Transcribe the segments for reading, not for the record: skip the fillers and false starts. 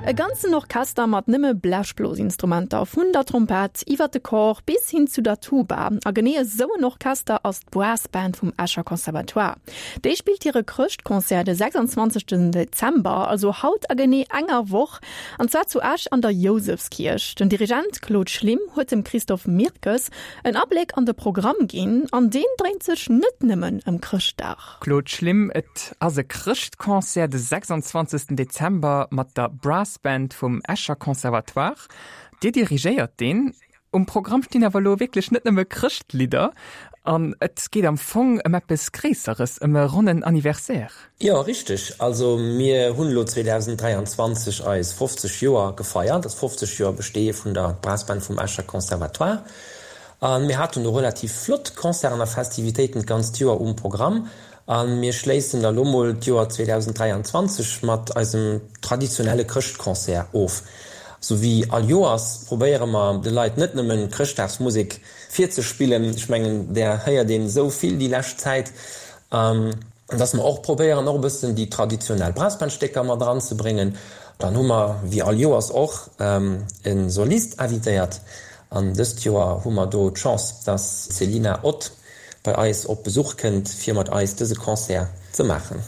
E ganzen Orchester mat nëmme Blechblosinstrumenter, vun der Trompett iwwer de Cor bis hin zu der Tuba. A genee esou en Orchester ass d'Brass Band vum Escher Conservatoire. Déi spillt hire Chrëschtconcert de 26 Dezember, also haut a genee enger Woch, an zwar zu Esch an der Jousefskierch. Den Dirigent Claude Schlim huet dem Christophe Mirkes en Abléck an de Programm ginn, an deen dréint sech net nëmmen ëm Chrëschtdag. Claude Schlim, Et ass e Chrëschtconcert de 26 Dezember mat der Brass Band vum Escher Conservatoire. Dir dirigéiert deen. Um Programm stinn awer elo wierklech net nëmme Chrëschtlidder an et geet am Fong ëm eppes Gréisseres, ëm e ronnen Anniversaire. Jo, richteg. Also mir hunn elo 2023 eis 50 Joer gefeiert, das 50 Joer Besteeë vun der Brass Band vum Escher Conservatoire. A mir haten do relativ flott Concerten a Festivitéiten d'ganzt Joer um Programm. A mir schléissen da lo mol d'Joer 2023 mat eisem traditionelle Chrëschtconcert of. Sou wéi all Joers probéiere mer de Leit net nëmmen Chrëschtdagsmusek virzespillen, ech mengen där héiert een esou vill déi lescht Zäit, dass mer och probéieren och e bëssen déi traditionell Brassbandstécker mat eranzebréngen. Dann hu mer wéi all Joers och e Solist invitéiert An dëst Joer hu mer do d'Chance, dass d'Selina Ott bei eis op Besuch kënnt, fir mat eis dëse Concert ze maachen.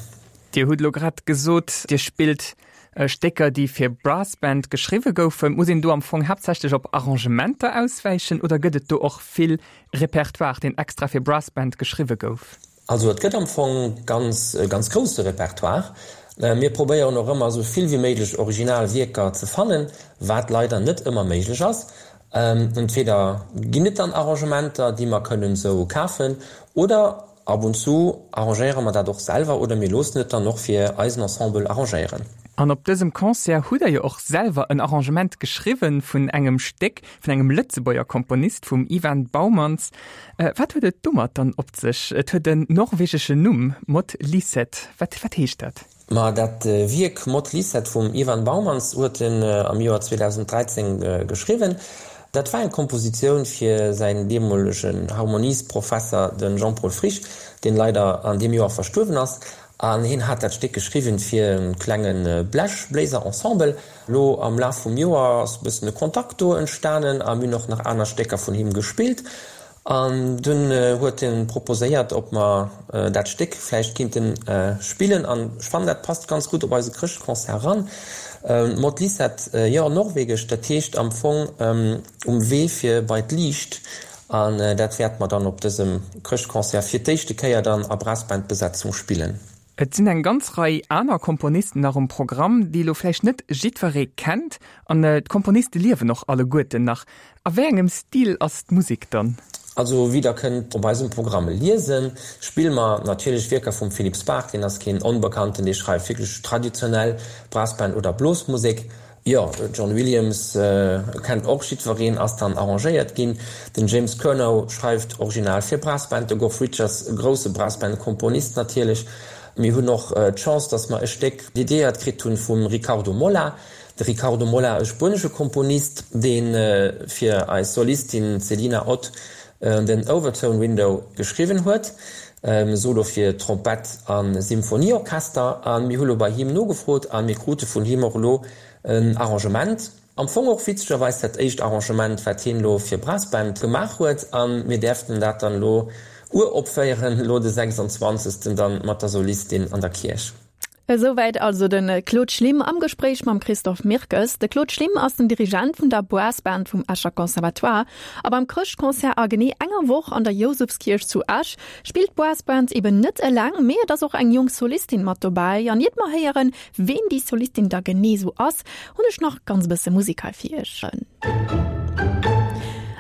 Dir hutt elo grad gesot, Dir spillt Stécker, déi fir Brassband geschriwwe goufen. Muss een do am Fong haaptsächlech op Arrangementer auswäichen oder gëtt et do och vill Repertoire, deen extra fir Brassband geschriwwe gouf? Also et gëtt am Fong ganz e ganz grousse Repertoire. Mir probéieren och ëmmer esou vill wéi méiglech original Wierker ze fannen, wat leider net ëmmer méiglech ass. Entweder ginn et dann Arrangementer, déi mer kënnen esou kafen, oder ab und zu arrangéiere mer dat och selwer oder mir loossen et dann och fir eisen Ensemble arrangéieren. An op dësem Concert hutt Der jo och selwer en Arrangement geschriwwen vun engem Stéck vun engem Lëtzebuerger Komponist, vum Ivan Baumans. Wat huet et domat dann op sech? Et huet en norwegeschen Numm, Mot Liset. Wat, wat heescht dat? Ma dat Wierk Mot Liset vum Ivan Baumans huet en am Joer 2013 geschriwwen. Dat war eng Kompositioun fir säin deemolegen Harmoniesprofesser, de Jean-Paul Frisch, deen leider an deem Joer verstuerwen ass. An hien hat dat Stéck geschriwwen fir e klenge Blechbléiser-Ensemble. Lo am Laf vum Joer ass e bëssen e Kontakt do entstanen a mir hunn och nach aner Stécker vun him gespillt. An dunn huet en proposéiert, ob mer dat Stéck vläicht kinnten spillen. An ech fannen, dat passt ganz gutt op eise Chrëschtconcert eran. Mot Lisette, jo, norwegesch, dat heescht am Fong um Wee fir bei d'Liicht. An dat wäerte mer dann op dësem Chrëschtconcert fir d'éischte Kéier dann a Brassbandbesetzung spillen. Et sinn eng ganz Rei aner Komponisten nach um Programm, déi elo vläicht net jiddweree kennt. An d'Komponiste liewen och alleguerten nach. A wéi engem Stil ass d'Musek dann? Also wéi der kënnt op eisem Programm liesen, spille mer natierlech Wierker vum Philippe Spark, deen ass keen Onbekannten, dee schreift wierklech traditionell Brassband oder Blosmusek. Jo, John Williams kennt och jiddwereen, ass dann arrangéiert ginn. Den James Curnow schreift original fir Brassband, de Goff Richards, e grousse Brassband-Komponist natierlech. Mir hunn och d'Chance, datt mer e Stéck dediéiert kritt hunn vum Ricardo Molla. De Ricardo Molla, e spuenesche Komponist, dee fir eis Solistin Celina Ott den Overtone Window geschriwwen huet, Solo fir Trompett a Symphonieorchester. A mir hu lo bei him nogefrot a mir krute vun him och elo en Arrangement. Am Fong och witzegerweis dat éischt Arrangement, wat hien elo fir Brassband gemaach huet. A mir däerften dat dann elo uropféieren, elo de 26. dann mat der Solistin an der Kierch. Esouwäit also de Claude Schlim am Gespréich mam Christophe Mirkes. De Claude Schlim ass den Dirigent vun der Brassband vum Escher Conservatoire. A beim Chrëschtconcert a genee enger Woch an der Jousefskierch zu Esch spillt d'Brassband eben net eleng, mee et ass och eng jonk Solistin mat dobäi. An iert mer héieren, ween déi Solistin da genee sou ass, hunn ech nach ganz e bësse Musek hei fir iech.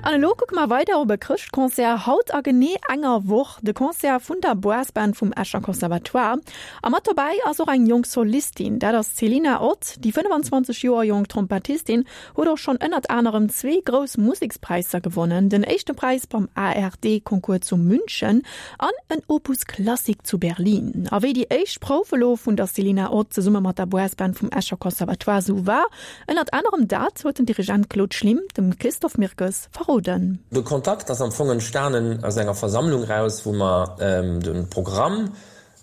An elo kucke mer weider op e Chrëschtconcert haut a genee enger Woch, de Concert vun der Brassband vum Escher Conservatoire. A mat dobäi ass och eng jonk Solistin, dat ass d'Selina Ott. Déi 25 Joer jonk Trompettistin huet och schonn ënnert anerem zwee grouss Musekspräisser gewonnen, den éischte Präis beim ARD-Concours zu München an en Opus Klassik zu Berlin. A wéi déi éischt Prouf elo vun der Selina Ott zesumme mat der Brassband vum Escher Conservatoire sou war, ënnert anerem dat huet den Dirigent Claude Schlim dem Christophe Mirkes verroden. De Kontakt ass am Fong entstanen aus enger Versammlung raus, wou mer de Programm.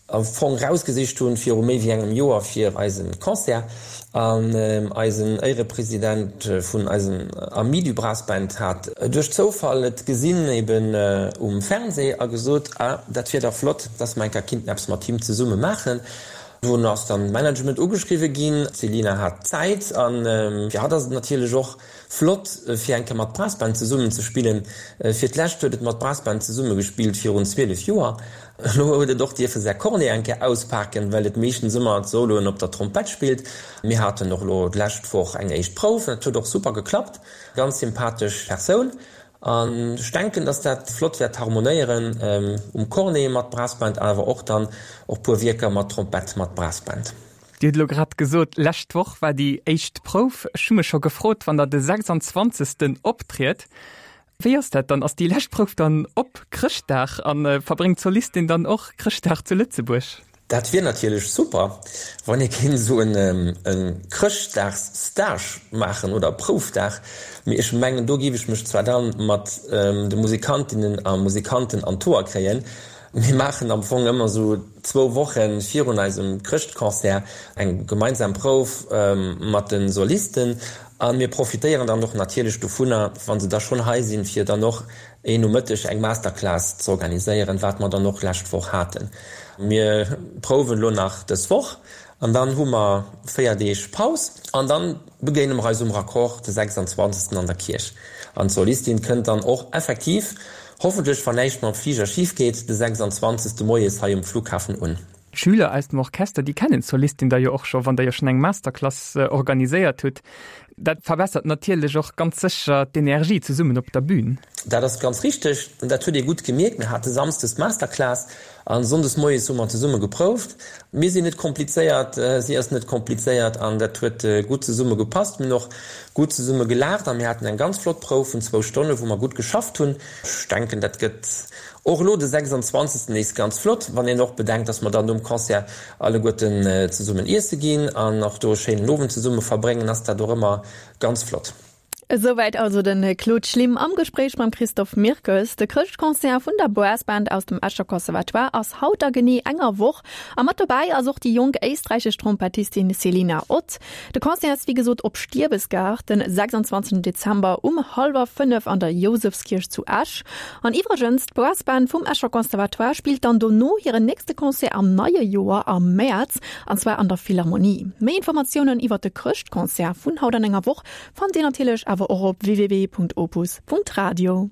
am Fong rausgesicht hunn viru méi wéi engem Joer fir eisen Concert. An eisen Éirepresident vun eisen Amis du Brass Band hat duerch Zoufall et gesinn eben um Fernseh a gesot, ah dat wier dach flott, dass mer eng Kéier kinnten eppes mat him zesumme maachen. Dunn ass dann d'Management ugeschriwwe ginn, d'Selina hat Zäit an fir hatt ass et natierlech och Flott fir eng Kéier mat Brass Band zesummen ze spillen. Fir d'lescht huet et mat Brass Band zesumme gespillt virun 12 Joer. Elo huet et och dierfe säi Cornet eng Kéier auspaken, well et meeschtens ëmmer d'Soloen op der Trompett spillt. Mir haten och elo d'lescht Woch eng éischt Prouf an et huet och super geklappt. Ganz sympathesch Persoun an ech denken, dass dat flott wäert harmonéieren um Cornet mat Brass Band awer och dann och puer Wierker mat Trompett mat Brass Band. Dir hutt elo grad gesot, lescht Woch war déi éischt Prouf. Ech hu mech scho gefrot, wann Der de 26. optriet, wéi ass dat dann? Ass déi lescht Prouf dann op Chrëschtdag a verbréngt d'Solistin dann och Chrëschtdag zu Lëtzebuerg? Dat wier natierlech super, wann ee kéint esou e Chrëschtdagsstage maachen oder Proufdag. Mee ech mengen, do géif ech mech zwar dann mat de Musikantinnen a Musikanten an d'Hoer kréien, Mir maachen am Fong ëmmer esou zwou Woche virun eisem Chrëschtconcert eng gemeinsam Prouf mat de Solisten a mir profitéieren dann och natierlech dovunner, wa se da schonn hei sinn, fir dann och een Nomëtteg eng Masterclass ze organiséieren, wat mer dann och lescht Woch haten. Mir prouwen elo nach dës Woch an dann hu mer 4 Deeg Paus an dann begéine mer eis um Raccord de 26. an der Kierch. An d'Solistin kënnt dann och effektiv, hoffentlech wann näischt mam Fliger schif geet, de 26. moies hei um Flughafen un. D'Schüler aus dem Orchester, déi kennen d'Solistin da jo och scho, wann der jo schonn eng Masterclass organiséiert hutt. Dat verbessert natierlech och ganz sécher d'Energie zesummen op der Bühn. Dat ass ganz richteg an dat huet ee gutt gemierkt. Mir hate samsdes d'Masterclass a sonndes moies hu mer zesumme geprouft. Mir sinn net komplizéiert, si ass net komplizéiert an dat huet gutt zesumme gepasst. Mir hunn och gutt zesumme gelaacht a mir haten eng ganz flott Prouf vun zwou Stonne wou mer gutt geschafft hunn. Ech denken, dat gëtt och elo de 26. nees ganz flott, wann een och bedenkt, dass mer dann nom Concert alleguerten zesummen iesse ginn an och do e schéinen Owend zesumme verbréngen, ass dat och ëmmer ganz flott. Esouwäit also de Claude Schlim am Gespréich mam Christophe Mirkes. De Chrëschtconcert vun der Brass Band aus dem Escher Conservatoire ass haut a genee enger Woch. A mat dobäi ass och déi jonk éisträichesch Trompettistin Selina Ott. De Concert ass wéi gesot op Stiebesgaart den 26 Dezember um hallwer 5 an der Jousefskierch zu Esch. An iwwregens, d'Brass Band vum Escher Conservatoire spillt dann dono hiren nächste Concert am neie Joer am Mäerz, an zwar an der Philharmonie. Méi Informatiounen iwwert de Chrëschtconcert vun haut an enger Woch Fannt Dir natierlech awer och op www.opus.radio.